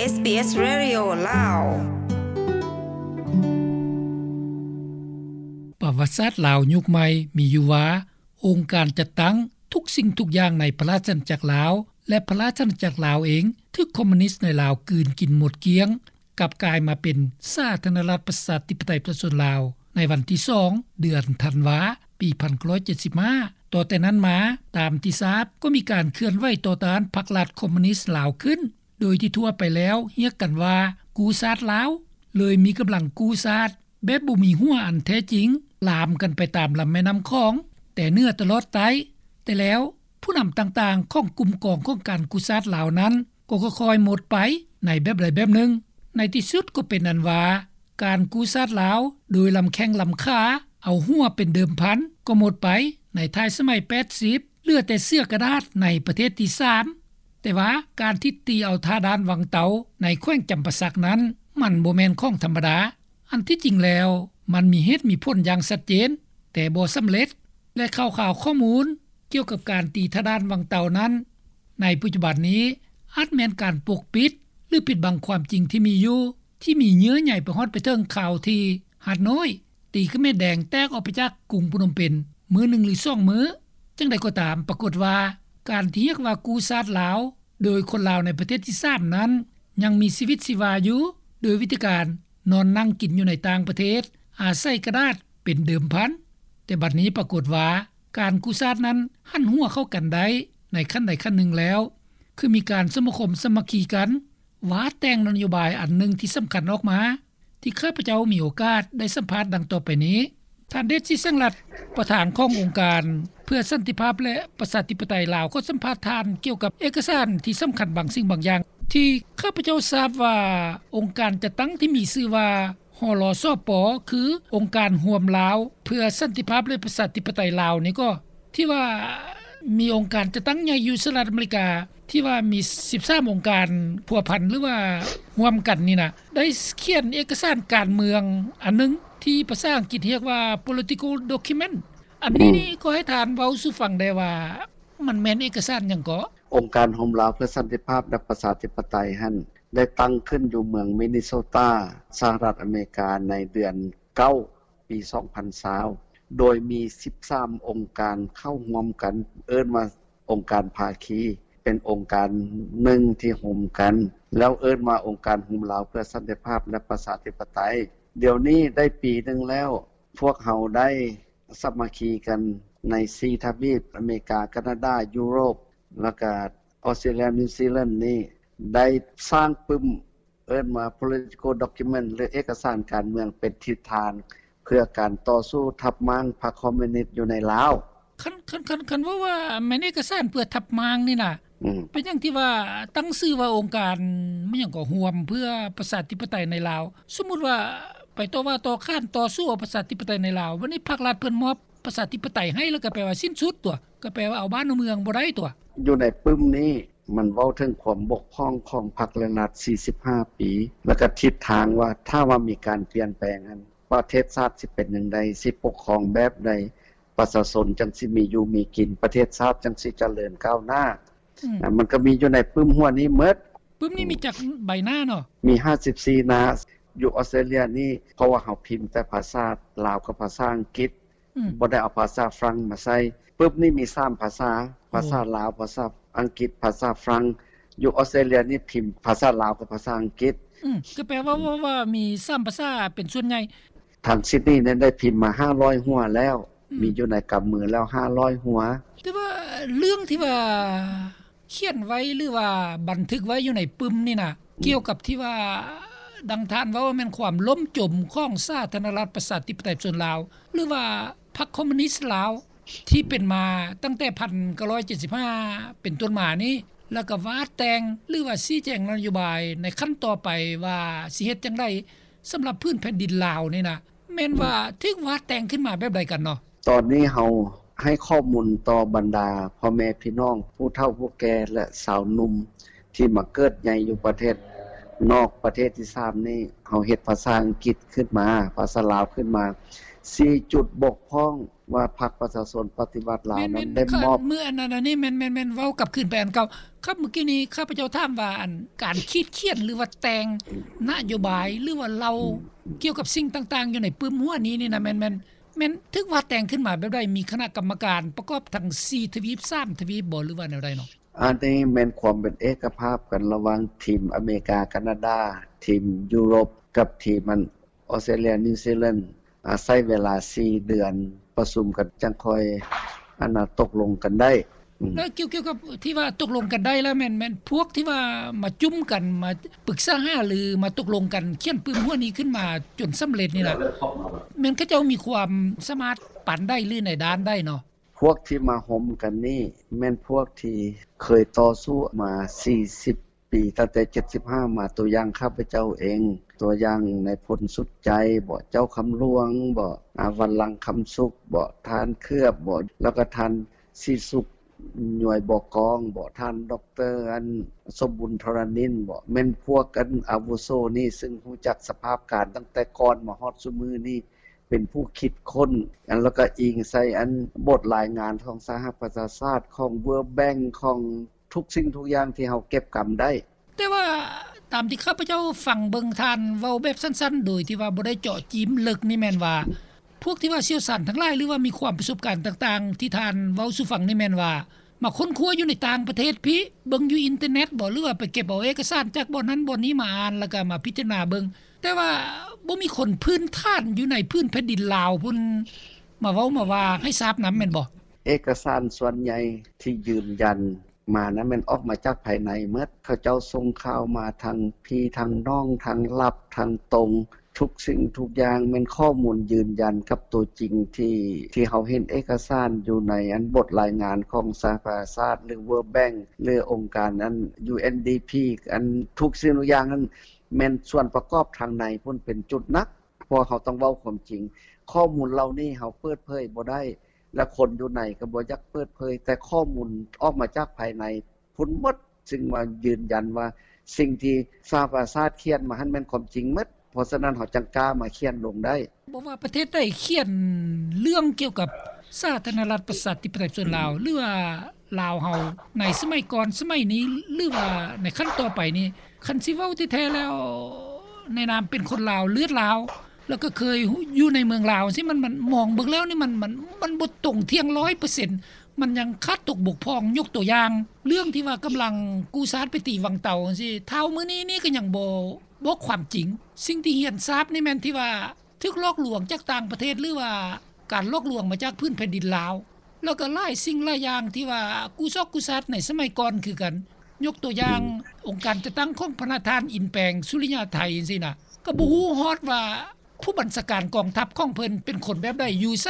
ເອສບີເອສ ເຣດິໂອ ລາວ. ປະຫວັດສາດລາວຍຸກໃໝ່ມີຢູ່ວ່າ ອົງການຈັດຕັ້ງທຸກສິ່ງທຸກຢ່າງໃນພະລາຊະອານາຈັກລາວ ແລະ ພະລາຊະອານາຈັກລາວເອງ ຖືກຄອມມູນິດໃນລາວກືນກິນໝົດກ້ຽງ, ກັບກາຍມາເປັນສາທາລະນະລັດ ປະຊາທິປະໄຕ ປະຊາຊົນລາວ ໃນວັນທີສອງ ເດືອນທັນວາ ປີໜຶ່ງພັນເກົ້າຮ້ອຍເຈັດສິບຫ້າ. ຕໍ່ແຕ່ນັ້ນມາ, ຕາມທີ່ຊາບ, ກໍມີການເຄື່ອນໄຫວຕໍ່ຕ້ານພັກລັດຄອມມູນິດລາວຂຶ້ນ, ໂດຍທີ່ທົ່ວໄປແລ້ວຮຽກກັນວ່າ ກູ້ຊາດລາວ, ເລີຍມີກຳລັງກູ້ຊາດ ແບບບໍ່ມີຫົວອັນແທ້ຈິງ ລາມກັນໄປຕາມລຳແມ່ນ້ຳຂອງ ແຕ່ເໜືອຕະຫຼອດໃຕ້. ແຕ່ແລ້ວ ຜູ້ນຳຕ່າງໆຂອງກຸ່ມກອງຂອງການກູ້ຊາດລາວນັ້ນ ກໍຄ່ອຍໆໝົດໄປໃນແບບໃດແບບໜຶ່ງ. ໃນທີ່ສຸດກໍເປັນອັນວ່າ ການກູ້ຊາດລາວໂດຍລຳແຂ້ງລຳຂາ ເອົາຫົວເປັນເດີມພັນ ກໍໝົດໄປໃນທ້າຍສະໄໝແປດສິບ ເຫຼືອແຕ່ເສືອກະດາດໃນປະເທດທີສາມ. ແຕ່ວ່າການທີ່ຕີເອົາທ່າດ່ານວັງເຕົາໃນແຂວງຈຳປາສັກນັ້ນ ມັນບໍ່ແມ່ນຂອງທຳມະດາ. ອັນທີ່ຈິງແລ້ວ ມັນມີເຫດມີຜົນຢ່າງຊັດເຈນ ແຕ່ບໍ່ສຳເລັດ ແລະ ຂ່າວໆຂໍ້ມູນກ່ຽວກັບການຕີທ່າດ່ານວັງເຕົານັ້ນ ໃນປັດຈຸບັນນີ້ ອາດແມ່ນການປົກປິດ ຫຼື ປິດບັງຄວາມຈິງທີ່ມີຢູ່ ທີ່ມີເຍື່ອໃຍໄປຮອດໄປເຖິງຂ່າວທີ່ຮັດນ້ອຍ ຕີຂະເໝນແດງແຕກອອກໄປຈາກກຸງພະນົມເປັນມື້ໜຶ່ງ ຫຼື ສອງມື້. ຈັ່ງໃດກໍຕາມ, ປາກົດວ່າ ການທີ່ຮຽກວ່າກູ້ຊາດລາວ ໂດຍຄົນລາວໃນປະເທດທີສາມນັ້ນ ຍັງມີຊີວິດຊີວາຢູ່ ໂດຍວິທີການນອນນັ່ງກິນຢູ່ໃນຕ່າງປະເທດ, ອາໄສກະດາດເປັນເດີມພັນ. ແຕ່ບັດນີ້ປາກົດວ່າ ການກູ້ຊາດນັ້ນຫັນຫົວເຂົ້າກັນໄດ້ໃນຂັ້ນໃດຂັ້ນໜຶ່ງແລ້ວ, ຄືມີການສະມາຄົມສາມັກຄີກັນ, ວາດແຕ່ງນະໂຍບາຍອັນໜຶ່ງທີ່ສຳຄັນອອກມາ ທີ່ຂ້າພະເຈົ້າມີໂອກາດໄດ້ສຳພາດດັ່ງຕໍ່ໄປນີ້. ທ່ານ ເດດ ສີແສງລັດ ປະທານຂອງອົງການເພື່ອສັນຕິພາບ ແລະ ປະຊາທິປະໄຕລາວ ກໍສຳພາດທ່ານກ່ຽວກັບເອກະສານທີ່ສຳຄັນບາງສິ່ງບາງຢ່າງ ທີ່ຂ້າພະເຈົ້າຊາບວ່າ ອົງການຈັດຕັ້ງທີ່ມີຊື່ວ່າ ຮລສປ ຄືອົງການຮ່ວມລາວເພື່ອສັນຕິພາບ ແລະ ປະຊາທິປະໄຕລາວນີ້ກໍ ທີ່ວ່າມີອົງການຈັດຕັ້ງໃຫຍ່ຢູ່ສະຫະລັດອາເມລິກາ ທີ່ວ່າມີສິບສາມອົງການພົວພັນ ຫຼືວ່າຮ່ວມກັນນີ້ນະ ໄດ້ຂຽນເອກະສານການເມືອງອັນໜຶ່ງ ທີ່ພາສາອັງກິດຮຽກວ່າ political document. ອັນນີ້ ອືມ ນີ້ຂໍໃຫ້ທ່ານເວົ້າສູ່ຟັງແດ່ວ່າ ມັນແມ່ນເອກະສານຫຍັງເກາະ? ອົງການຮ່ວມລາວເພື່ອສັນຕິພາບ ແລະ ປະຊາທິປະໄຕຫັ້ນ ໄດ້ຕັ້ງຂຶ້ນຢູ່ເມືອງມິນນິໂຊຕາ ສະຫະລັດອາເມລິກາ ໃນເດືອນເກົ້າ ປີສອງພັນຊາວ ໂດຍມີສິບສາມອົງການເຂົ້າຮ່ວມກັນ ເອີ້ນວ່າອົງການພາຄີ ເປັນອົງການໜຶ່ງທີ່ໂຮມກັນ ແລ້ວເອີ້ນວ່າອົງການໂຮມລາວເພື່ອສັນຕິພາບ ແລະ ປະຊາທິປະໄຕ. ດຽວນີ້ໄດ້ປີໜຶ່ງແລ້ວ ພວກເຮົາໄດ້ສາມັກຄີກັນໃນສີ່ທະວີບ ອາເມລິກາ, ການາດາ, ຢູໂຣບ ແລ້ວກະ ອອສເຕຣເລຍ, ນິວຊີແລນນີ້ ໄດ້ສ້າງປຶ້ມ ເອີ້ນວ່າ political document ຫຼື ເອກະສານການເມືອງ ເປັນທິດທາງເພື່ອການຕໍ່ສູ້ທັບມ້າງພັກຄອມມູນິດຢູ່ໃນລາວ. ຄັນ ຄັນ ຄັນ ຄັນເວົ້າວ່າແມ່ນເອກະສານເພື່ອທັບມ້າງນີ້ນະ ອືມ ເປັນຫຍັງທີ່ວ່າຕັ້ງຊື່ວ່າອົງການ ແມ່ນຫຍັງກໍ ຮ່ວມເພື່ອປະຊາທິປະໄຕໃນລາວ? ສົມມຸດວ່າໄປຕໍ່ວ່າຕໍ່ຂານຕໍ່ສູ້ເອົາປະຊາທິປະໄຕໃນລາວ, ບັດນີ້ພັກລັດເພິ່ນມອບປະຊາທິປະໄຕໃຫ້ ແລ້ວກໍແປວ່າສິ້ນສຸດຕົວະ, ກໍແປວ່າເອົາບ້ານເອົາເມືອງບໍ່ໄດ້ຕົວະ. ຢູ່ໃນປຶ້ມນີ້ ມັນເວົ້າເຖິງຄວາມບົກຜ່ອງຂອງພັກ ແລະ ລັດ ສີ່ສິບຫ້າປີ ແລ້ວກໍທິດທາງວ່າ ຖ້າວ່າມີການປ່ຽນແປງຫັ້ນ ປະເທດຊາດຊິເປັນຈັ່ງໃດ, ຊິປົກຄອງແບບໃດ, ປະຊາຊົນຈັ່ງຊິມີຢູ່ມີກິນ, ປະເທດຊາດຈັ່ງຊິຈະເລີນກ້າວໜ້າ. ອືມ ນະ ມັນກໍມີຢູ່ໃນປຶ້ມຫົວນີ້ໝົດ. ປຶ້ມນີ້ມີຈັກໃບໜ້າເນາະ? ມີຫ້າສິບສີ່ໜ້າ. ຢູ່ອອສເຕຣເລຍນີ້ ເພາະວ່າເຮົາພິມແຕ່ພາສາລາວກັບພາສາອັງກິດ, ອືມ ບໍ່ໄດ້ເອົາພາສາຝຣັ່ງມາໃສ່. ປຶ້ມນີ້ມີສາມພາສາ, ໂອ້ ພາສາລາວ, ພາສາອັງກິດ, ພາສາຝຣັ່ງ. ຢູ່ອອສເຕຣເລຍນີ້ພິມພາສາລາວກັບພາສາອັງກິດ. ອືມ ກໍແປວ່າ ວ່າ ວ່າມີສາມພາສາເປັນສ່ວນໃຫຍ່. ທາງຊິດນີນີ້ໄດ້ພິມມາຫ້າຮ້ອຍຫົວແລ້ວ, ອືມ ມີຢູ່ໃນກຳມືແລ້ວຫ້າຮ້ອຍຫົວ. ແຕ່ວ່າເລື່ອງທີ່ວ່າ ຂຽນໄວ້ ຫຼືວ່າບັນທຶກໄວ້ຢູ່ໃນປຶ້ມນີ້ນະ ອືມ ກ່ຽວກັບທີ່ວ່າ ດັ່ງທ່ານເວົ້າວ່າແມ່ນຄວາມລົ້ມຈົມຂອງສາທາລະນະລັດປະຊາທິປະໄຕປະຊາຊົນລາວ ຫຼືວ່າພັກຄອມມູນິດລາວ ທີ່ເປັນມາຕັ້ງແຕ່ໜຶ່ງພັນເກົ້າຮ້ອຍເຈັດສິບຫ້າເປັນຕົ້ນມານີ້ ແລ້ວກໍວາດແຕ່ງ ຫຼືວ່າຊີ້ແຈງນະໂຍບາຍໃນຂັ້ນຕໍ່ໄປວ່າຊິເຮັດຈັ່ງໃດ ສຳລັບພື້ນແຜ່ນດິນລາວນີ້ນະ ແມ່ນວ່າ ອືມ ຖືກວາດແຕ່ງຂຶ້ນມາແບບໃດກັນເນາະ? ຕອນນີ້ເຮົາໃຫ້ຂໍ້ມູນຕໍ່ບັນດາພໍ່ແມ່ພີ່ນ້ອງ ຜູ້ເຖົ້າຜູ້ແກ່ ແລະ ຊາວໜຸ່ມທີ່ມາເກີດໃຫຍ່ຢູ່ປະເທດ ນອກປະເທດທີສາມນີ້ ເຮົາເຮັດພາສາອັງກິດຂຶ້ນມາ ພາສາລາວຂຶ້ນມາ ສີ່ຈຸດບົກຜ່ອງ ວ່າພັກປະຊາຊົນປະຕິວັດລາວນັ້ນໄດ້ມອບ ເມື່ອອັນນັ້ນອັນນີ້ແມ່ນໆໆ ເວົ້າກັບຄືນໄປອັນເກົ່າ. ຄັບ ເມື່ອກີ້ນີ້ຂ້າພະເຈົ້າຖາມວ່າ ອັນການຂີດຂຽນ ຫຼືວ່າແຕ່ງນະໂຍບາຍ ຫຼືວ່າເລົ່າກ່ຽວກັບສິ່ງຕ່າງໆຢູ່ໃນປຶ້ມຫົວນີ້ນີ້ນະ ແມ່ນ ແມ່ນ ແມ່ນຖືກວາດແຕ່ງຂຶ້ນມາແບບໃດ? ມີຄະນະກຳມະການປະກອບທັງສີ່ທະວີບ ສາມທະວີບບໍ່ ຫຼືວ່າແນວໃດເນາະ? ອັນນີ້ແມ່ນຄວາມເປັນເອກະພາບກັນລະຫວ່າງທີມອາເມລິກາ ການາດາ ທີມຢູໂຣບ ກັບທີມອັນ ອອສເຕຣເລຍ ນິວຊີແລນ ອາ ໃຊ້ເວລາສີ່ເດືອນປະຊຸມກັນ ຈັ່ງຄ່ອຍອັນນ່າຕົກລົງກັນໄດ້. ອືມ ແລ້ວກ່ຽວ ກ່ຽວກັບທີ່ວ່າຕົກລົງກັນໄດ້ແລ້ວ ແມ່ນ ແມ່ນພວກທີ່ວ່າມາຈຸ້ມກັນ ມາປຶກສາຫາລື ມາຕົກລົງກັນ ຂຽນປຶ້ມຫົວນີ້ຂຶ້ນມາຈົນສຳເລັດນີ້ນະ ແມ່ນເຂົາເຈົ້າມີຄວາມສາມາດປານໃດ ຫຼືໃນດ້ານໃດເນາະ? ພວກທີ່ມາໂຮມກັນນີ້ ແມ່ນພວກທີ່ເຄີຍຕໍ່ສູ້ມາສີ່ສິບປີ ຕັ້ງແຕ່ເຈັດສິບຫ້າມາ ຕົວຢ່າງຂ້າພະເຈົ້າເອງ ຕົວຢ່າງນາຍພົນສຸດໃຈບໍ ເຈົ້າຄຳຫຼວງບໍ ອາ ວັນລັງຄຳສຸກບໍ ທ່ານເຂືອບບໍ ແລ້ວກໍທ່ານສີສຸກ ຍວຍບໍ່ກອງບໍ ທ່ານ ດອກເຕີ ອັນ ສົມບຸນ ທໍລະນິນບໍ ແມ່ນພວກອັນອາວຸໂສນີ້ ຊຶ່ງຮູ້ຈັກສະພາບການຕັ້ງແຕ່ກ່ອນມາຮອດຊຸມື້ນີ້ ເປັນຜູ້ຄິດຄົ້ນ ອັນ ແລ້ວກໍອີງໃສ່ອັນບົດລາຍງານຂອງສະຫະປະຊາຊາດ ຂອງ World Bank ຂອງທຸກສິ່ງທຸກຢ່າງທີ່ເຮົາເກັບກຳໄດ້. ແຕ່ວ່າຕາມທີ່ຂ້າພະເຈົ້າຟັງເບິ່ງທ່ານເວົ້າແບບສັ້ນໆ ໂດຍທີ່ວ່າບໍ່ໄດ້ເຈາະຈີ້ມເລິກນີ້ແມ່ນວ່າ ພວກທີ່ວ່າຊ່ຽວຊານທັງຫຼາຍ ຫຼືວ່າມີຄວາມປະສົບການຕ່າງໆ ທີ່ທ່ານເວົ້າສູ່ຟັງນີ້ແມ່ນວ່າ ມາຄົ້ນຄວ້າຢູ່ໃນຕ່າງປະເທດພີ້ ເບິ່ງຢູ່ອິນເຕີເນັດບໍ ຫຼືວ່າໄປເກັບເອົາເອກະສານຈາກບ່ອນນັ້ນບ່ອນນີ້ມາອ່ານ ແລ້ວກໍມາພິຈາລະນາເບິ່ງ ແຕ່ວ່າບໍ່ມີຄົນພື້ນຖານຢູ່ໃນພື້ນແຜ່ນດິນລາວພຸ້ນ ມາເວົ້າມາວ່າໃຫ້ຊາບນຳແມ່ນບໍ່? ເອກະສານສ່ວນໃຫຍ່ທີ່ຢືນຢັນມານັ້ນແມ່ນອອກມາຈາກພາຍໃນໝົດ ເຂົາເຈົ້າສົ່ງຂ່າວມາທາງພີ້ທາງນ້ອງ ທາງລັບ ທາງຕົງ ທຸກສິ່ງທຸກຢ່າງແມ່ນຂໍ້ມູນຢືນຢັນກັບຕົວຈິງທີ່ ທີ່ເຮົາເຫັນເອກະສານຢູ່ໃນອັນບົດລາຍງານຂອງສະຫະປະຊາຊາດ ຫຼື World Bank ຫຼື ອົງການອັນ UNDP ອັນທຸກສິ່ງທຸກຢ່າງນັ້ນ ແມ່ນສ່ວນປະກອບທາງໃນພຸ້ນເປັນຈຸດໜັກ ເພາະເຮົາຕ້ອງເວົ້າຄວາມຈິງ ຂໍ້ມູນເຫຼົ່ານີ້ເຮົາເປີດເຜີຍບໍ່ໄດ້ ແລະ ຄົນຢູ່ໃນກໍບໍ່ຢາກເປີດເຜີຍ ແຕ່ຂໍ້ມູນອອກມາຈາກພາຍໃນພຸ້ນໝົດ ຊຶ່ງວ່າຢືນຢັນວ່າສິ່ງທີ່ສະຫະປະຊາຊາດຂຽນມາຫັ້ນແມ່ນຄວາມຈິງໝົດ ເພາະສະນັ້ນເຮົາຈັ່ງກ້າມາຂຽນລົງໄດ້. ບໍ່ວ່າປະເທດໃດຂຽນເລື່ອງກ່ຽວກັບສາທາລະນະລັດປະຊາທິປະໄຕສ່ວນລາວ ຫຼືວ່າລາວເຮົາໃນສະໄໝກ່ອນ ສະໄໝນີ້ ຫຼືວ່າໃນຂັ້ນຕໍ່ໄປນີ້ ຄັນຊິເວົ້າແທ້ໆແລ້ວ ໃນນາມເປັນຄົນລາວ ເລືອດລາວ ແລ້ວກໍເຄີຍຢູ່ໃນເມືອງລາວຈັ່ງຊີ້ ມັນ ມັນມອງເບິ່ງແລ້ວນີ້ ມັນ ມັນ ມັນບໍ່ຕົງທ່ຽງຮ້ອຍເປີເຊັນ ມັນຍັງຂາດຕົກບົກຜ່ອງ. ຍົກຕົວຢ່າງ ເລື່ອງທີ່ວ່າກຳລັງກູ້ຊາດໄປຕີວັງເຕົາຈັ່ງຊີ້ ເທົ່າມື້ນີ້ນີ້ກໍຍັງບໍ່ບອກຄວາມຈິງ. ສິ່ງທີ່ຮຽນຊາບນີ້ແມ່ນທີ່ວ່າ ຖືກຫຼອກລວງຈາກຕ່າງປະເທດ ຫຼືວ່າການຫຼອກລວງມາຈາກພື້ນແຜ່ນດິນລາວ ແລ້ວກໍຫຼາຍສິ່ງຫຼາຍຢ່າງທີ່ວ່າກູ້ຊອກກູ້ຊາດໃນສະໄໝກ່ອນຄືກັນ. ຍົກຕົວຢ່າງ ອືມ ອົງການຈັດຕັ້ງຂອງພະນະທ່ານ ອິນແປງ ສຸລິຍາໄທ ຈັ່ງຊີ້ນະ ກໍບໍ່ຮູ້ຮອດວ່າຜູ້ບັນຊາການກອງທັບຂອງເພິ່ນເປັນຄົນແບບໃດ ຢູ່ໃສ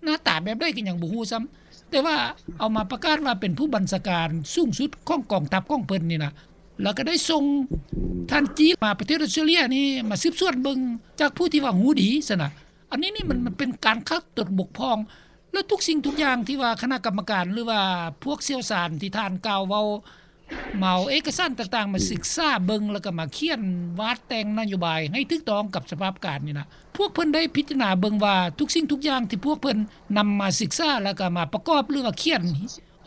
ໜ້າຕາແບບໃດກໍຍັງບໍ່ຮູ້ຊ້ຳ ແຕ່ວ່າເອົາມາປະກາດວ່າເປັນຜູ້ບັນຊາການສູງສຸດຂອງກອງທັບຂອງເພິ່ນນີ້ນະ ແລ້ວກໍໄດ້ສົ່ງທ່ານຈີນມາປະເທດອອສເຕຣເລຍນີ້ ມາສືບສວນເບິ່ງຈາກຜູ້ທີ່ວ່າຮູ້ດີຊັ້ນນະ. ອັນນີ້ນີ້ມັນ ມັນເປັນການຂາດຕົກບົກຜ່ອງ ແລະ ທຸກສິ່ງທຸກຢ່າງທີ່ວ່າຄະນະກຳມະການ ຫຼືວ່າພວກຊ່ຽວຊານທີ່ທ່ານກ່າວເວົ້າ ມາເອົາເອກະສານຕ່າງໆມາສຶກສາເບິ່ງ ແລ້ວກໍມາຂຽນວາດແຕ່ງນະໂຍບາຍໃຫ້ຖືກຕ້ອງກັບສະພາບການນີ້ນະ ພວກເພິ່ນໄດ້ພິຈາລະນາເບິ່ງວ່າທຸກສິ່ງທຸກຢ່າງທີ່ພວກເພິ່ນນຳມາສຶກສາ ແລ້ວກໍມາປະກອບ ຫຼືວ່າຂຽນ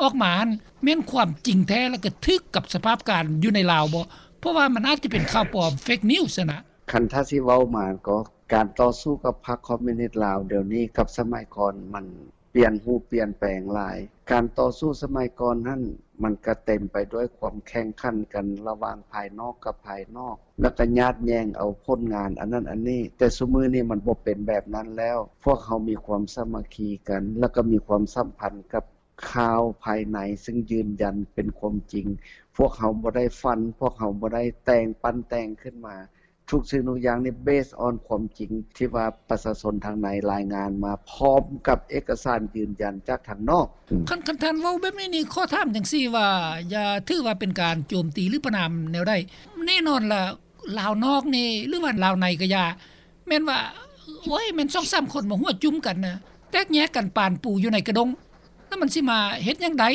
ອອກມາຫັ້ນ ແມ່ນຄວາມຈິງແທ້ ແລ້ວກໍຖືກກັບສະພາບການຢູ່ໃນລາວບໍ່? ເພາະວ່າມັນອາດຈະເປັນຂ່າວປອມ ເຟກນິວສ໌ ຊັ້ນນະ. ຄັນຖ້າຊິເວົ້າມາກໍ ການຕໍ່ສູ້ກັບພັກຄອມມູນິດລາວດຽວນີ້ກັບສະໄໝກ່ອນມັນປ່ຽນຮູບປ່ຽນແປງຫຼາຍ. ການຕໍ່ສູ້ສະໄໝກ່ອນຫັ້ນ ມັນກະເຕັມໄປດ້ວຍຄວາມແຂ່ງຂັນກັນລະຫວ່າງພາຍນອກກັບພາຍນອກ ແລ້ວກະຍາດແຍ່ງເອົາຜົນງານອັນນັ້ນອັນນີ້, ແຕ່ຊຸມື້ນີ້ມັນບໍ່ເປັນແບບນັ້ນແລ້ວ. ພວກເຮົາມີຄວາມສາມັກຄີກັນ ແລ້ວກະມີຄວາມສຳພັນກັບຂ່າວພາຍໃນ ຊຶ່ງຢືນຢັນເປັນຄວາມຈິງ. ພວກເຮົາບໍ່ໄດ້ຝັນ, ພວກເຮົາບໍ່ໄດ້ແຕ່ງ ປັ້ນແຕ່ງຂຶ້ນມາ. ທຸກສິ່ງທຸກຢ່າງນີ້ ເບສອອນຄວາມຈິງທີ່ວ່າປະຊາຊົນທາງໃນລາຍງານມາ ພ້ອມກັບເອກະສານຢືນຢັນຈາກທາງນອກ. ອືມ ຄັນ ຄັນທ່ານເວົ້າແບບນີ້ນີ້ ຂໍຖາມຈັ່ງຊີ້ວ່າ ຢ່າຖືວ່າເປັນການໂຈມຕີ ຫຼື ປະນາມແນວໃດ? ແນ່ນອນລະ ລາວນອກນີ້ ຫຼືວ່າລາວໃນກໍຢ່າ ແມ່ນວ່າ ໂອ້ຍ ແມ່ນສອງສາມຄົນມາຫົວຈຸ້ມກັນນະ ແຕກແຍກກັນປານປູຢູ່ໃນກະດົງ ແລ້ວມັນຊິມາເຮັດຫຍັງໄດ້?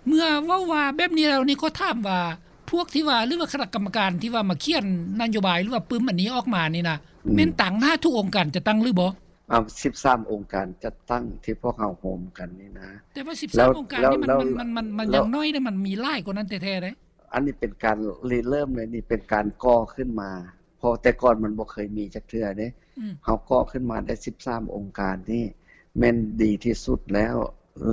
ເມື່ອເວົ້າວ່າແບບນີ້ແລ້ວນີ້ ຂໍຖາມວ່າ ພ ພວກທີ່ວ່າ ຫຼືວ່າຄະນະກຳມະການທີ່ວ່າມາຂຽນນະໂຍບາຍ ຫຼືວ່າປຶ້ມອັນນີ້ອອກມານີ້ນະ ອືມ ແມ່ນຕາງໜ້າທຸກອົງການຈັດຕັ້ງຫຼືບໍ່? ເອົາ ສິບສາມອົງການຈັດຕັ້ງທີ່ພວກເຮົາໂຮມກັນນີ້ນະ. ແຕ່ວ່າສິບສາມອົງການນີ້ມັນ ມັນ ມັນ ມັນຍັງນ້ອຍເດ້ ມັນມີຫຼາຍກວ່ານັ້ນແທ້ໆເດ້. ອັນນີ້ເປັນການລິເລີ່ມເລີຍ ນີ້ເປັນການກໍ່ຂຶ້ນມາ ເພາະແຕ່ກ່ອນມັນບໍ່ເຄີຍມີຈັກເທື່ອເດ້. ອືມ ເຮົາກໍ່ຂຶ້ນມາໄດ້ສິບສາມອົງການນີ້ ແມ່ນດີທີ່ສຸດແລ້ວ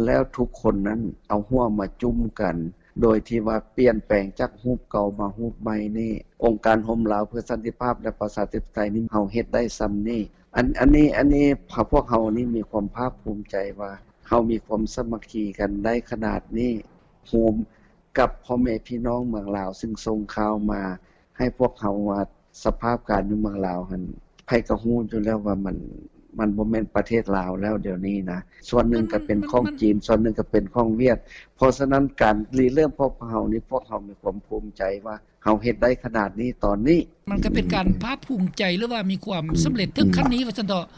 ແລ້ວທຸກຄົນນັ້ນເອົາຫົວມາຈຸ້ມກັນ ໂດຍທີ່ວ່າປ່ຽນແປງຈາກຮູບເກົ່າມາຮູບໃໝ່ນີ້ ອົງການໂຮມລາວເພື່ອສັນຕິພາບ ແລະ ປະຊາທິປະໄຕນີ້ ເຮົາເຮັດໄດ້ຊ່ຳນີ້. ອັນ ອັນນີ້ ອັນນີ້ ພວກເຮົານີ້ມີຄວາມພາກພູມໃຈວ່າ ເຮົາມີຄວາມສາມັກຄີກັນໄດ້ຂະໜາດນີ້ ໂຮມກັບພໍ່ແມ່ພີ່ນ້ອງເມືອງລາວ ຊຶ່ງສົ່ງຂ່າວມາໃຫ້ພວກເຮົາວ່າ ສະພາບການຢູ່ເມືອງລາວຫັ້ນ ໃຜກໍຮູ້ຢູ່ແລ້ວວ່າມັນ ມັນບໍ່ແມ່ນປະເທດລາວແລ້ວດຽວນີ້ນະ. ສ່ວນໜຶ່ງກໍເປັນຂອງຈີນ ສ່ວນໜຶ່ງກໍເປັນຂອງຫວຽດ. ເພາະສະນັ້ນ ການລິເລີ່ມພວກເຮົານີ້ ພວກເຮົາມີຄວາມພູມໃຈວ່າ ເຮົາເຮັດໄດ້ຂະໜາດນີ້ຕອນນີ້. ມັນກໍເປັນການພາກພູມໃຈ ຫຼືວ່າມີຄວາມສຳເລັດເຖິງຂັ້ນນີ້ວ່າຊັ້ນເຖາະ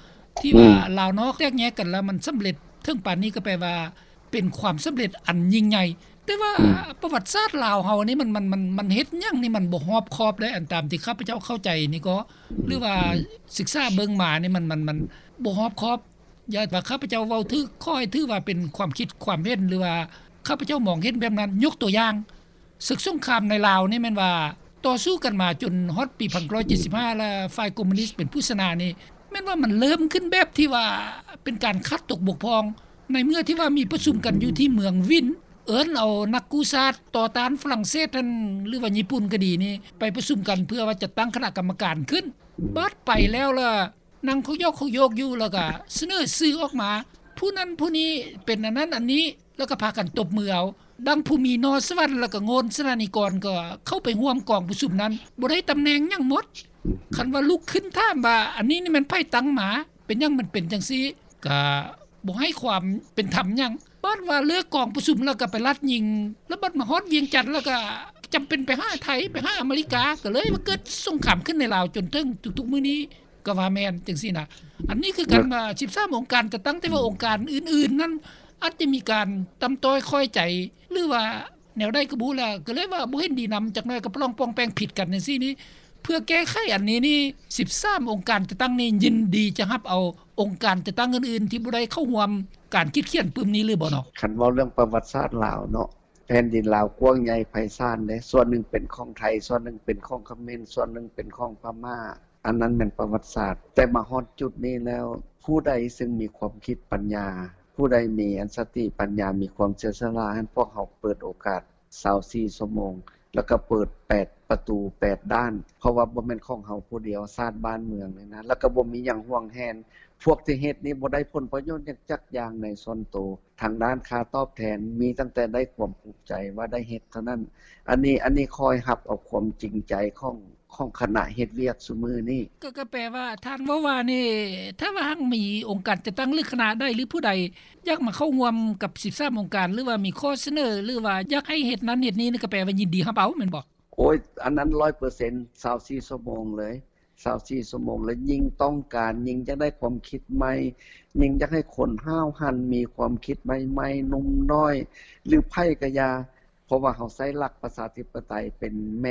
ທີ່ວ່າລາວນອກແຕກແຍກກັນແລ້ວ ມັນສຳເລັດເຖິງປານນີ້ ກໍແປວ່າເປັນຄວາມສຳເລັດອັນຍິ່ງໃຫຍ່. ແຕ່ວ່າປະຫວັດສາດລາວເຮົານີ້ ມັນ ມັນ ມັນ ມັນເຮັດຫຍັງນີ້ ມັນບໍ່ຮອບຄອບເລີຍ ອັນຕາມທີ່ຂ້າພະເຈົ້າເຂົ້າໃຈນີ້ກໍ ຫຼືວ່າສຶກສາເບິ່ງມານີ້ ມັນ ມັນ ມັນບໍ່ຮອບຄອບ. ຢ່າວ່າຂ້າພະເຈົ້າເວົ້າຖືກ ຂໍໃຫ້ຖືວ່າເປັນຄວາມຄິດຄວາມເຫັນ ຫຼືວ່າຂ້າພະເຈົ້າມອງເຫັນແບບນັ້ນ. ຍົກຕົວຢ່າງ ເສິກສົງຄາມໃນລາວນີ້ແມ່ນວ່າຕໍ່ສູ້ກັນມາຈົນຮອດປີພັນເກົ້າຮ້ອຍເຈັດສິບຫ້າ ແລະ ຝ່າຍຄອມມູນິດເປັນຜູ້ຊະນະນີ້ ແມ່ນວ່າມັນເລີ່ມຂຶ້ນແບບທີ່ວ່າເປັນການຂາດຕົກບົກຜ່ອງ ໃນເມື່ອທີ່ວ່າມີປະຊຸມກັນຢູ່ທີ່ເມືອງວິນ ເອີ້ນເອົານັກກູ້ຊາດຕໍ່ຕ້ານຝຣັ່ງເສດຫັ້ນ ຫຼືວ່າຍີ່ປຸ່ນກໍດີນີ້ ໄປປະຊຸມກັນເພື່ອວ່າຈັດຕັ້ງຄະນະກຳມະການຂຶ້ນ. ບາດໄປແລ້ວລະ ນັ່ງເຂົາຢອກເຂົາໂຍກຢູ່ ແລ້ວກະສະເໜີຊື່ອອກມາ ຜູ້ນັ້ນຜູ້ນີ້ເປັນອັນນັ້ນອັນນີ້ ແລ້ວກະພາກັນຕົບມືເອົາ. ດັ່ງຜູ້ມີໜໍ່ສະຫວັນ ແລ້ວກະໂງ່ນສະໜານິກອນ ກໍເຂົ້າໄປຮ່ວມກອງປະຊຸມນັ້ນ ບໍ່ໄດ້ຕຳແໜ່ງຫຍັງໝົດ. ຄັນວ່າລຸກຂຶ້ນຖາມວ່າ ອັນນີ້ນີ້ແມ່ນໃຜຕັ້ງມາ? ເປັນຫຍັງມັນເປັນຈັ່ງຊີ້? ກະບໍ່ໃຫ້ຄວາມເປັນທຳຫຍັງ. ບາດວ່າເລີກກອງປະຊຸມແລ້ວກໍໄປລັດຍິງ ແລ້ວບັດມາຮອດວຽງຈັນແລ້ວກໍຈຳເປັນໄປຫາໄທ ໄປຫາອາເມລິກາ ກໍເລີຍວ່າເກີດສົງຄາມຂຶ້ນໃນລາວຈົນເຖິງທຸກໆມື້ນີ້ກໍວ່າແມ່ນຈັ່ງຊີ້ນະ. ອັນນີ້ຄືກັນວ່າສິບສາມອົງການຈັດຕັ້ງ ແຕ່ວ່າອົງການອື່ນໆນັ້ນອາດຈະມີການຕ່ຳຕ້ອຍຂ້ອຍໃຈ ຫຼືວ່າແນວໃດກໍບໍ່ຮູ້ແຫຼະ ກໍເລີຍວ່າບໍ່ເຫັນດີນຳ ຈັກໜ້ອຍກໍປະລອງປ່ອງແປງຜິດກັນຈັ່ງຊີ້ນີ້. ເພື່ອແກ້ໄຂອັນນີ້ນີ້ ສິບສາມອົງການຈັດຕັ້ງນີ້ຍິນດີຈະຮັບເອົາອົງການຈັດຕັ້ງອື່ນໆທີ່ບໍ່ໄດ້ເຂົ້າຮ່ວມການຄິດຂຽນປຶ້ມນີ້ຫຼືບໍ່ເນາະ? ຄັນເວົ້າເລື່ອງປະຫວັດສາດລາວເນາະ ແຜ່ນດິນລາວກວ້າງໃຫຍ່ໄພສານເດ້ ສ່ວນໜຶ່ງເປັນຂອງໄທ ສ່ວນໜຶ່ງເປັນຂອງຂະເໝນ ສ່ວນໜຶ່ງເປັນຂອງພະມ້າ ອັນນັ້ນແມ່ນປະຫວັດສາດ. ແຕ່ມາຮອດຈຸດນີ້ແລ້ວ ຜູ້ໃດຊຶ່ງມີຄວາມຄິດປັນຍາ ຜູ້ໃດມີອັນສະຕິປັນຍາ ມີຄວາມເສຍສະຫຼະ ຫັ້ນພວກເຮົາເປີດໂອກາດ ຊາວສີ່ຊົ່ວໂມງ ແລ້ວກໍເປີດແປດປະຕູແປດດ້ານ ເພາະວ່າບໍ່ແມ່ນຂອງເຮົາຜູ້ດຽວ ຊາດບ້ານເມືອງນີ້ນະ ແລ້ວກໍບໍ່ມີຫຍັງຫວງແຫນ. ພວກທີ່ເຮັດນີ້ບໍ່ໄດ້ຜົນປະໂຫຍດຫຍັງຈັກຢ່າງໃນສ່ວນໂຕ ທາງດ້ານຄ່າຕອບແທນ ມີຕັ້ງແຕ່ໄດ້ຄວາມພູມໃຈວ່າໄດ້ເຮັດເທົ່ານັ້ນ. ອັນນີ້ ອັນນີ້ຂ້ອຍຮັບເອົາຄວາມຈິງໃຈຂອງ ຂອງຄະນະເຮັດວຽກຊຸມື້ນີ້. ກໍ ກໍແປວ່າທ່ານເວົ້າວ່ານີ້ ຖ້າວ່າຫາກມີອົງການຈັດຕັ້ງ ຫຼື ຄະນະໃດ ຫຼື ຜູ້ໃດຢາກມາເຂົ້າຮ່ວມກັບສິບສາມອົງການ ຫຼືວ່າມີຂໍ້ສະເໜີ ຫຼືວ່າຢາກໃຫ້ເຮັດນັ້ນເຮັດນີ້ ກໍແປວ່າຍິນດີຮັບເອົາແມ່ນບໍ່? ໂອ້ຍ ອັນນັ້ນຮ້ອຍເປີເຊັນ ຊາວສີ່ຊົ່ວໂມງເລີຍ ຊາວສີ່ຊົ່ວໂມງເລີຍ. ຍິ່ງຕ້ອງການ ຍິ່ງຢາກໄດ້ຄວາມຄິດໃໝ່ ຍິ່ງຢາກໃຫ້ຄົນຫ້າວຫັນ ມີຄວາມຄິດໃໝ່ໆ ໜຸ່ມນ້ອຍ ຫຼື ໃຜກໍຢ່າ ເພາະວ່າເຮົາໃຊ້ຫຼັກປະຊາທິປະໄຕເປັນແມ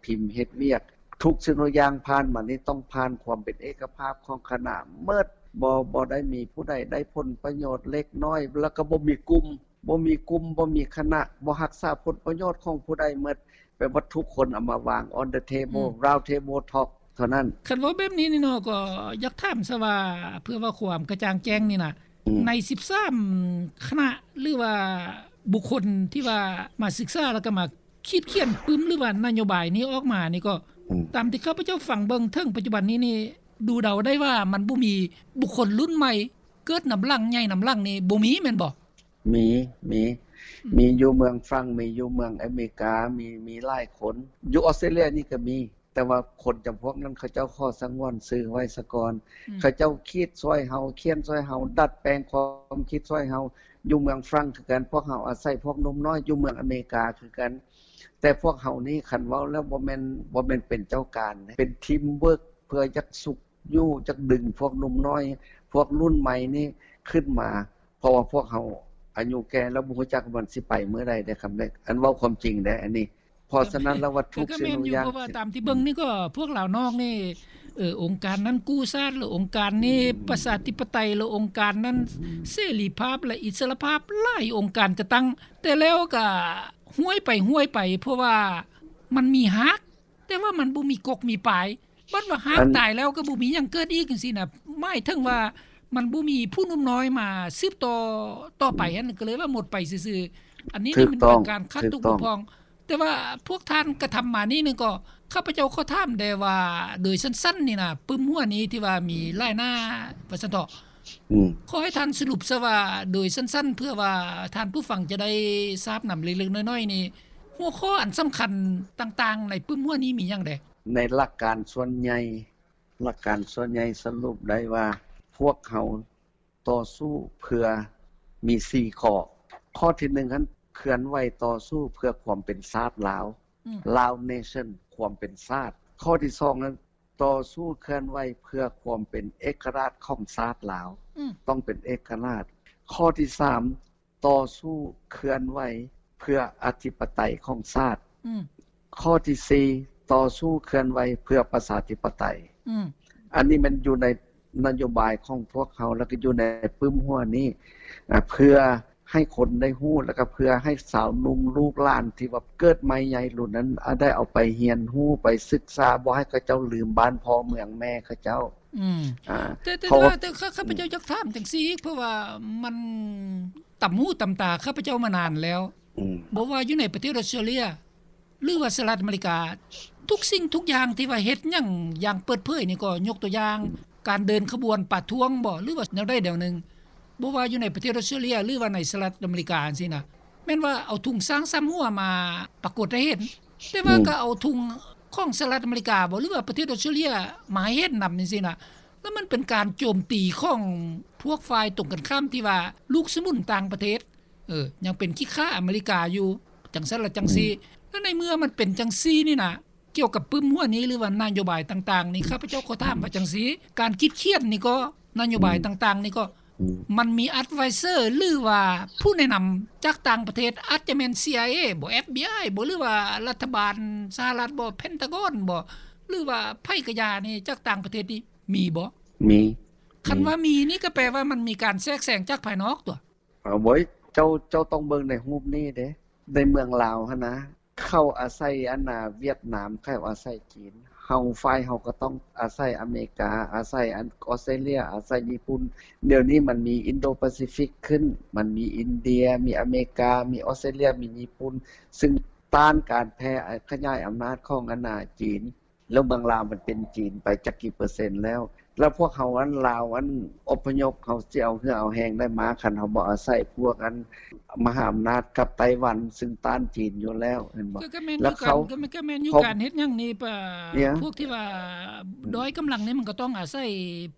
່ພິມເຮັດວຽກ. ທຸກສິ່ງທຸກຢ່າງຜ່ານມານີ້ຕ້ອງຜ່ານຄວາມເປັນເອກະພາບຂອງຄະນະໝົດ. ບໍ່ ບໍ່ໄດ້ມີຜູ້ໃດໄດ້ຜົນປະໂຫຍດເລັກນ້ອຍ ແລ້ວກໍບໍ່ມີກຸ່ມ ບໍ່ມີກຸ່ມ ບໍ່ມີຄະນະ ບໍ່ຮັກສາຜົນປະໂຫຍດຂອງຜູ້ໃດໝົດ. ແປວ່າທຸກຄົນເອົາມາວາງ on the table round table talk ເທົ່ານັ້ນ. ຄັນເວົ້າແບບນີ້ນີ້ເນາະ ກໍຢາກຖາມຊະວ່າ ເພື່ອວ່າຄວາມກະຈ່າງແຈ້ງນີ້ນະ ໃນສິບສາມຄະນະ ຫຼືວ່າບຸກຄົນທີ່ວ່າມາສຶກສາ ແລ້ວກໍມາຂີດຂຽນປຶ້ມ ຫຼືວ່ານະໂຍບາຍນີ້ອອກມານີ້ ກໍຕາມທີ່ຂ້າພະເຈົ້າຟັງເບິ່ງເຖິງປັດຈຸບັນນີ້ນີ້ ດູເດົາໄດ້ວ່າມັນບໍ່ມີບຸກຄົນລຸ້ນໃໝ່ເກີດນຳຫຼັງ ໃຫຍ່ນຳຫຼັງນີ້ ບໍ່ມີແມ່ນບໍ່? ມີ ມີ ມີຢູ່ເມືອງຝຣັ່ງ ມີຢູ່ເມືອງອາເມລິກາ ມີ ມີຫຼາຍຄົນ. ຢູ່ອອສເຕຣເລຍນີ້ກໍມີ ແຕ່ວ່າຄົນຈຳພວກນັ້ນເຂົາເຈົ້າຂໍສະຫງວນຊື່ໄວ້ສາກ່ອນ. ເຂົາເຈົ້າຄິດຊ່ວຍເຮົາ ຂຽນຊ່ວຍເຮົາ ດັດແປງຄວາມຄິດຊ່ວຍເຮົາ. ຢູ່ເມືອງຝຣັ່ງຄືກັນ ພວກເຮົາອາໄສພວກໜຸ່ມນ້ອຍ. ຢູ່ເມືອງອາເມລິກາຄືກັນ. ແຕ່ພວກເຮົານີ້ ຄັນເວົ້າແລ້ວບໍ່ແມ່ນ ບໍ່ແມ່ນເປັນເຈົ້າການເດ້ ເປັນທີມເວີກ ເພື່ອຢາກຊຸກ ຢູ່ຈັກດຶງພວກໜຸ່ມນ້ອຍ ພວກລຸ້ນໃໝ່ນີ້ຂຶ້ນມາ ເພາະວ່າພວກເຮົາອາຍຸແກ່ແລ້ວ ບໍ່ຮູ້ຈັກວ່າມັນຊິໄປມື້ໃດເດ້ ຄຳເລັກ ອັນເວົ້າຄວາມຈິງເດ້ ອັນນີ້ ເພາະສະນັ້ນແລ້ວວ່າທຸກສິ່ງທຸກຢ່າງ ກໍແມ່ນຢູ່ ເພາະວ່າຕາມທີ່ເບິ່ງນີ້ກໍພວກລາວນອກນີ້ ເອີ ອົງການນັ້ນກູ້ຊາດ ຫຼື ອົງການນີ້ປະຊາທິປະໄຕ ຫຼື ອົງການນັ້ນເສລີພາບ ແລະ ອິດສະຫຼະພາບ ຫຼາຍອົງການຈັດຕັ້ງ ແຕ່ແລ້ວກໍຫ້ວຍໄປຫ້ວຍໄປ ເພາະວ່າມັນມີຮາກ ແຕ່ວ່າມັນບໍ່ມີກົກມີປາຍ ບັດວ່າຫາກຕາຍແລ້ວກໍບໍ່ມີຫຍັງເກີດອີກຈັ່ງຊີ້ນະ ໝາຍເຖິງວ່າມັນບໍ່ມີຜູ້ໜຸ່ມນ້ອຍມາສືບຕໍ່ຕໍ່ໄປຫັ້ນ ກໍເລີຍວ່າໝົດໄປຊື່ໆ ອັນນີ້ນີ້ມັນເປັນການຂາດຕົກບົກຜ່ອງ ແຕ່ວ່າພວກທ່ານກະທຳມານີ້ນີ້ກໍ ຂ້າພະເຈົ້າຂໍຖາມແດ່ວ່າ ໂດຍສັ້ນໆນີ້ນະ ປຶ້ມຫົວນີ້ທີ່ວ່າມີຫຼາຍໜ້າວ່າຊັ້ນເຖາະ ຂໍໃຫ້ທ່ານສະຫຼຸບຊະວ່າ ໂດຍສັ້ນໆ ເພື່ອວ່າທ່ານຜູ້ຟັງຈະໄດ້ຊາບນຳເລັກໆນ້ອຍໆນີ້ ຫົວຂໍ້ອັນສຳຄັນຕ່າງໆໃນປຶ້ມຫົວນີ້ມີຫຍັງແດ່? ໃນຫຼັກການສ່ວນໃຫຍ່ ຫຼັກການສ່ວນໃຫຍ່ສະຫຼຸບໄດ້ວ່າ ພວກເຮົາຕໍ່ສູ້ເພື່ອມີສີ່ຂໍ້. ຂໍ້ທີໜຶ່ງຫັ້ນ ເຄື່ອນໄຫວຕໍ່ສູ້ເພື່ອຄວາມເປັນຊາດລາວ ອືມ Lao Nation ຄວາມເປັນຊາດ. ຂໍ້ທີສອງນັ້ນ ຕໍ່ສູ້ເຄື່ອນໄຫວເພື່ອຄວາມເປັນເອກະລາດຂອງຊາດລາວ ອືມ ຕ້ອງເປັນເອກະລາດ. ຂໍ້ທີສາມ ຕໍ່ສູ້ເຄື່ອນໄຫວເພື່ອອະທິປະໄຕຂອງຊາດ. ອືມ ຂໍ້ທີສີ່ ຕໍ່ສູ້ເຄື່ອນໄຫວເພື່ອປະຊາທິປະໄຕ. ອືມ ອັນນີ້ແມ່ນຢູ່ໃນນະໂຍບາຍຂອງພວກເຮົາ ແລ້ວກໍຢູ່ໃນປຶ້ມຫົວນີ້ ອາ ເພື່ອໃຫ້ຄົນໄດ້ຮູ້ ແລ້ວກໍເພື່ອໃຫ້ຊາວໜຸ່ມລູກຫຼານທີ່ວ່າເກີດໃໝ່ໃຫຍ່ລຸ້ນນັ້ນ ອາ ໄດ້ເອົາໄປຮຽນຮູ້ ໄປສຶກສາ ບໍ່ໃຫ້ເຂົາເຈົ້າລືມບ້ານພໍ່ເມືອງແມ່ເຂົາເຈົ້າ. ອືມ ອາ ແຕ່ ແຕ່ ແຕ່ວ່າ ແຕ່ຂ້າ ຂ້າພະເຈົ້າຢາກຖາມຈັ່ງຊີ້ ເພາະວ່າມັນຕຳຫູຕຳຕາຂ້າພະເຈົ້າມານານແລ້ວ ອືມ ບໍ່ວ່າຢູ່ໃນປະເທດອອສເຕຣເລຍ ຫຼືວ່າສະຫະລັດອາເມລິກາ ທຸກສິ່ງທຸກຢ່າງທີ່ວ່າເຮັດຫຍັງຢ່າງເປີດເຜີຍນີ້ກໍ ຍົກຕົວຢ່າງ ການເດີນຂະບວນປະທ້ວງບໍ ຫຼືວ່າແນວໃດແນວໜຶ່ງ ບໍ່ວ່າຢູ່ໃນປະເທດອອສເຕຣເລຍ ຫຼືວ່າໃນສະຫະລັດອາເມລິກາຈັ່ງຊີ້ນະ ແມ່ນວ່າເອົາທຸງຊ້າງສາມຫົວມາປາກົດໃຫ້ເຫັນ ແຕ່ວ່າ ອືມ ກໍເອົາທຸງຂອງສະຫະລັດອາເມລິກາບໍ ຫຼືວ່າປະເທດອອສເຕຣເລຍມາໃຫ້ເຫັນນຳຈັ່ງຊີ້ນະ ແລ້ວມັນເປັນການໂຈມຕີຂອງພວກຝ່າຍຕົງກັນຂ້າມທີ່ວ່າລູກສະໜູນຕ່າງປະເທດ ເອີ ຍັງເປັນຂີ້ຂ້າອາເມລິກາຢູ່ ຈັ່ງຊັ້ນລະຈັ່ງຊີ້ ອືມ ແລ້ວໃນເມື່ອມັນເປັນຈັ່ງຊີ້ນີ້ນະ ກ່ຽວກັບປຶ້ມຫົວນີ້ ຫຼືວ່ານະໂຍບາຍຕ່າງໆນີ້ ຂ້າພະເຈົ້າຂໍຖາມວ່າຈັ່ງຊີ້ ການຄິດຂຽນນີ້ກໍ ນະໂຍບາຍ ອືມ ຕ່າງໆນີ້ກໍ ອືມ ມັນມີ advisor ຫຼືວ່າຜູ້ແນະນຳຈາກຕ່າງປະເທດ ອາດຈະແມ່ນ CIA ບໍ FBI ບໍ ຫຼືວ່າລັດຖະບານສະຫະລັດບໍ Pentagon ບໍ ຫຼືວ່າໃຜກະຢ່ານີ້ ຈາກຕ່າງປະເທດນີ້ມີບໍ? ມີ. ຄັນວ່າມີນີ້ກໍແປວ່າມັນມີການແຊກແຊງຈາກພາຍນອກຕົວະ? ເອົາ ໂອ້ຍ ເຈົ້າ ເຈົ້າຕ້ອງເບິ່ງໃນຮູບນີ້ເດ້ ໃນເມືອງລາວຫັ້ນນະ ເຂົາອາໄສອັນນ່າຫວຽດນາມ ເຂົາອາໄສຈີນ ເຮົາ ຝ່າຍເຮົາກໍຕ້ອງອາໄສອາເມລິກາ ອາໄສອັນ ອອສເຕຣເລຍ ອາໄສຍີ່ປຸ່ນ. ດຽວນີ້ມັນມີອິນໂດປາຊີຟິກຂຶ້ນ ມັນມີອິນເດຍ ມີອາເມລິກາ ມີອອສເຕຣເລຍ ມີຍີ່ປຸ່ນ ຊຶ່ງຕ້ານການແຜ່ຂະຫຍາຍອຳນາດຂອງອັນນ່າຈີນ. ແລ້ວເມືອງລາວມັນເປັນຈີນໄປຈັກກີ່ເປີເຊັນແລ້ວ ແລ້ວພວກເຮົາອັນລາວອັນອົບພະຍົບ ເຮົາຊິເອົາເຫື່ອເອົາແຮງໃດມາ ຄັນເຮົາບໍ່ອາໄສພວກອັນມະຫາອຳນາດກັບໄຕ້ຫວັນ ຊຶ່ງຕ້ານຈີນຢູ່ແລ້ວ ແມ່ນບໍ່? ກໍແມ່ນ ແລ້ວເຂົາ ກໍແມ່ນຢູ່ ການເຮັດຫຍັງນີ້ ພວກທີ່ວ່າດ້ອຍກຳລັງນີ້ ມັນກໍຕ້ອງອາໄສ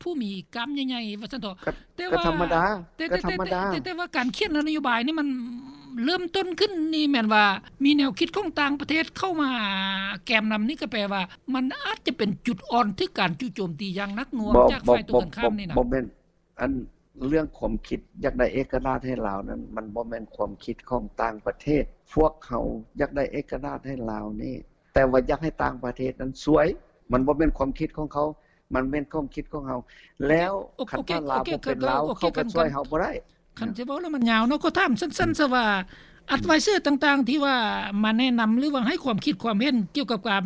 ຜູ້ມີກ້າມໃຫຍ່ໆ ວ່າຊັ້ນເຖາະ. ແຕ່ວ່າ ກໍທຳມະດາ ແຕ່ ແຕ່ ແຕ່ ແຕ່ ແຕ່ ແຕ່ວ່າການຂຽນນະໂຍບາຍນີ້ ມັນເລີ່ມຕົ້ນຂຶ້ນນີ້ແມ່ນວ່າມີແນວຄິດຂອງຕ່າງປະເທດເຂົ້າມາແກມນຳນີ້ ກໍແປວ່າມັນອາດຈະເປັນຈຸດອ່ອນຖືກການຈຸໂຈມຕີຢ່າງໜັກໜ່ວງຈາກຝ່າຍຕົງກັນຂ້າມນີ້ນະ. ບໍ່ແມ່ນ ອັນເລື່ອງຄວາມຄິດຢາກໄດ້ເອກະລາດໃຫ້ລາວນັ້ນ ມັນບໍ່ແມ່ນຄວາມຄິດຂອງຕ່າງປະເທດ. ພວກເຮົາຢາກໄດ້ເອກະລາດໃຫ້ລາວນີ້ ແຕ່ວ່າຢາກໃຫ້ຕ່າງປະເທດນັ້ນຊ່ວຍ ມັນບໍ່ແມ່ນຄວາມຄິດຂອງເຂົາ ມັນແມ່ນຄວາມຄິດຂອງເຮົາ. ແລ້ວຄັນວ່າລາວບໍ່ເປັນລາວ ເຂົາກໍຊ່ວຍເຮົາບໍ່ໄດ້. ຄັນຊິເວົ້າແລ້ວມັນຍາວເນາະ ຂໍຖາມສັ້ນໆຊະວ່າ advisor ຕ່າງໆ ທີ່ວ່າມາແນະນຳ ຫຼືວ່າໃຫ້ຄວາມຄິດຄວາມເຫັນກ່ຽວກັບການ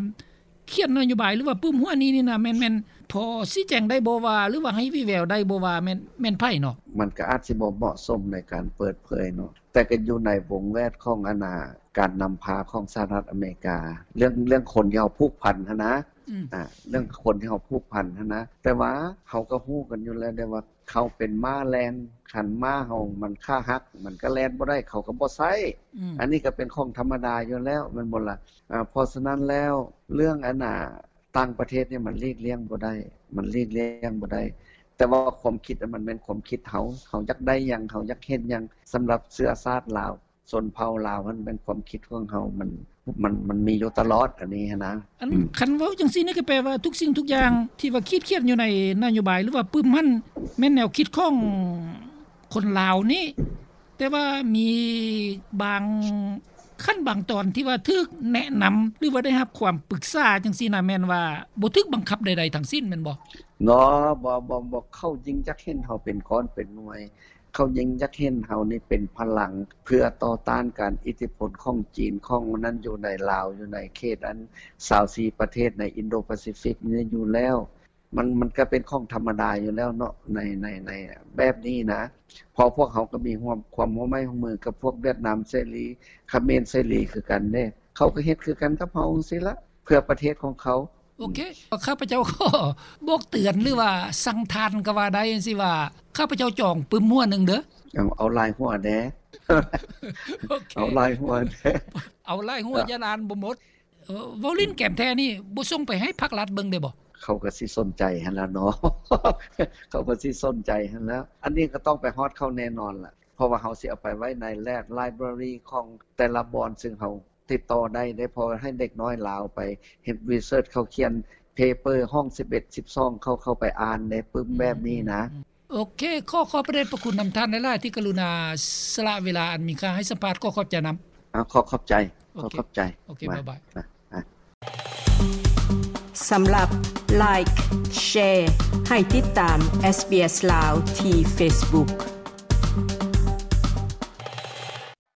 ຂຽນນະໂຍບາຍ ຫຼືວ່າປຶ້ມຫົວນີ້ນີ້ນະ ແມ່ນ ແມ່ນພໍຊີ້ແຈງໄດ້ບໍ່ວ່າ ຫຼືວ່າໃຫ້ວີແວວໄດ້ບໍ່ວ່າແມ່ນ ແມ່ນໃຜເນາະ? ມັນກໍອາດຊິບໍ່ເໝາະສົມໃນການເປີດເຜີຍເນາະ ແຕ່ກໍຢູ່ໃນວົງແວດຂອງອັນນ່າ ການນຳພາຂອງສະຫະລັດອາເມລິກາ ເລື່ອງ ເລື່ອງຄົນທີ່ເຮົາຜູກພັນຫັ້ນນະ ອືມ ອາ ເລື່ອງຄົນທີ່ເຮົາຜູກພັນຫັ້ນນະ ແຕ່ວ່າເຮົາກໍຮູ້ກັນຢູ່ແລ້ວເດ້ວ່າ ເຂົາເປັນມ້າແລ່ນ ຄັນມ້າເຮົາມັນຂາຫັກ ມັນກໍແລ່ນບໍ່ໄດ້ ເຂົາກໍບໍ່ໃຊ້ ອືມ ອັນນີ້ກໍເປັນຂອງທຳມະດາຢູ່ແລ້ວ ແມ່ນບໍ່ລະ? ອາ ເພາະສະນັ້ນແລ້ວ ເລື່ອງອັນນ່າ ຕ່າງປະເທດນີ້ມັນຫຼີກລ່ຽງບໍ່ໄດ້ ມັນຫຼີກລ່ຽງບໍ່ໄດ້ ແຕ່ວ່າຄວາມຄິດມັນແມ່ນຄວາມຄິດເຮົາ ເຮົາຢາກໄດ້ຫຍັງ ເຮົາຢາກເຫັນຫຍັງ ສຳລັບເຊື້ອຊາດລາວ ຊົນເຜົ່າລາວຫັ້ນ ແມ່ນຄວາມຄິດຂອງເຮົາ ມັນ ມັນ ມັນມີຢູ່ຕະຫຼອດ ອັນນີ້ຫັ້ນນະ. ອັນ ອືມ ຄັນເວົ້າຈັ່ງຊີ້ນີ້ ກໍແປວ່າທຸກສິ່ງທຸກຢ່າງທີ່ວ່າຂີດຂຽນຢູ່ໃນນະໂຍບາຍ ຫຼືວ່າປຶ້ມຫັ້ນ ແມ່ນແນວຄິດຂອງຄົນລາວນີ້ ແຕ່ວ່າມີບາງ ຄັນບາງຕອນທີ່ວ່າຖືກແນະນຳ ຫຼືວ່າໄດ້ຮັບຄວາມປຶກສາຈັ່ງຊີ້ນະ ແມ່ນວ່າບໍ່ຖືກບັງຄັບໃດໆທັງສິ້ນແມ່ນບໍ່? ເນາະ ບໍ່ ບໍ່ ບໍ່ ເຂົາຍິ່ງຢາກເຫັນເຮົາເປັນກ້ອນເປັນໜ່ວຍ ເຂົາຍິ່ງຢາກເຫັນເຮົານີ້ເປັນພະລັງ ເພື່ອຕໍ່ຕ້ານການອິດທິພົນຂອງຈີນ ຂອງນັ້ນຢູ່ໃນລາວ ຢູ່ໃນເຂດອັນຊາວສີ່ປະເທດໃນອິນໂດປາຊີຟິກນີ້ຢູ່ແລ້ວ. ມັນ ມັນກະເປັນຂອງທຳມະດາຢູ່ແລ້ວເນາະ ໃນ ໃນ ໃນແບບນີ້ນະ ເພາະພວກເຮົາກະມີຮ່ວມ ຄວາມຮ່ວມໄມ້ຮ່ວມມືກັບພວກຫວຽດນາມເສລີ ຂະເໝນເສລີຄືກັນເດ້ ເຂົາກະເຮັດຄືກັນກັບເຮົາຈັ່ງຊີ້ລະ ເພື່ອປະເທດຂອງເຂົາ. ໂອເຄ ຂ້າພະເຈົ້າຂໍບອກເຕືອນ ຫຼືວ່າສັ່ງທ່ານກະວ່າໄດ້ຈັ່ງຊີ້ວ່າ ຂ້າພະເຈົ້າຈອງປຶ້ມຫົວໜຶ່ງເດີ. ເອົາ ເອົາຫຼາຍຫົວແດ່ ໂອເຄ ເອົາຫຼາຍຫົວແດ່ ເອົາຫຼາຍຫົວ ຢ້ານອ່ານບໍ່ໝົດ. ເອີ ເວົ້າຫຼິ້ນແກມແທ້ນີ້ບໍ່ສົ່ງໄປໃຫ້ພັກລັດເບິ່ງເດ້ບໍ່? ເຂົາກະຊິສົນໃຈຫັ້ນລະເນາະ ເຂົາກະຊິສົນໃຈຫັ້ນລະ ອັນນີ້ກະຕ້ອງໄປຮອດເຂົາແນ່ນອນລະ ເພາະວ່າເຮົາຊິເອົາໄປໄວ້ໃນ lab library ຂອງແຕ່ລະບ່ອນ ຊຶ່ງເຮົາຕິດຕໍ່ໄດ້ເດ້ ເພາະໃຫ້ເດັກນ້ອຍລາວໄປເຮັດ research ເຂົາຂຽນ paper ຫ້ອງສິບເອັດ ສິບສອງ ເຂົາ ເຂົາໄປອ່ານເດ້ ປຶ້ມແບບນີ້ນະ. ໂອເຄ ຂໍຂອບພະເດດພະຄຸນນຳທ່ານຫຼາຍໆ ທີ່ກະລຸນາສະຫຼະເວລາອັນມີຄ່າໃຫ້ສຳພາດ ຂໍຂອບໃຈນຳ. ອ່າ ຂໍຂອບໃຈ ຂໍຂອບໃຈ ໂອເຄ ບາຍບາຍ. ສຳລັບ like share ໃຫ້ຕິດຕາມ SBS ລາວ ທີ່ Facebook.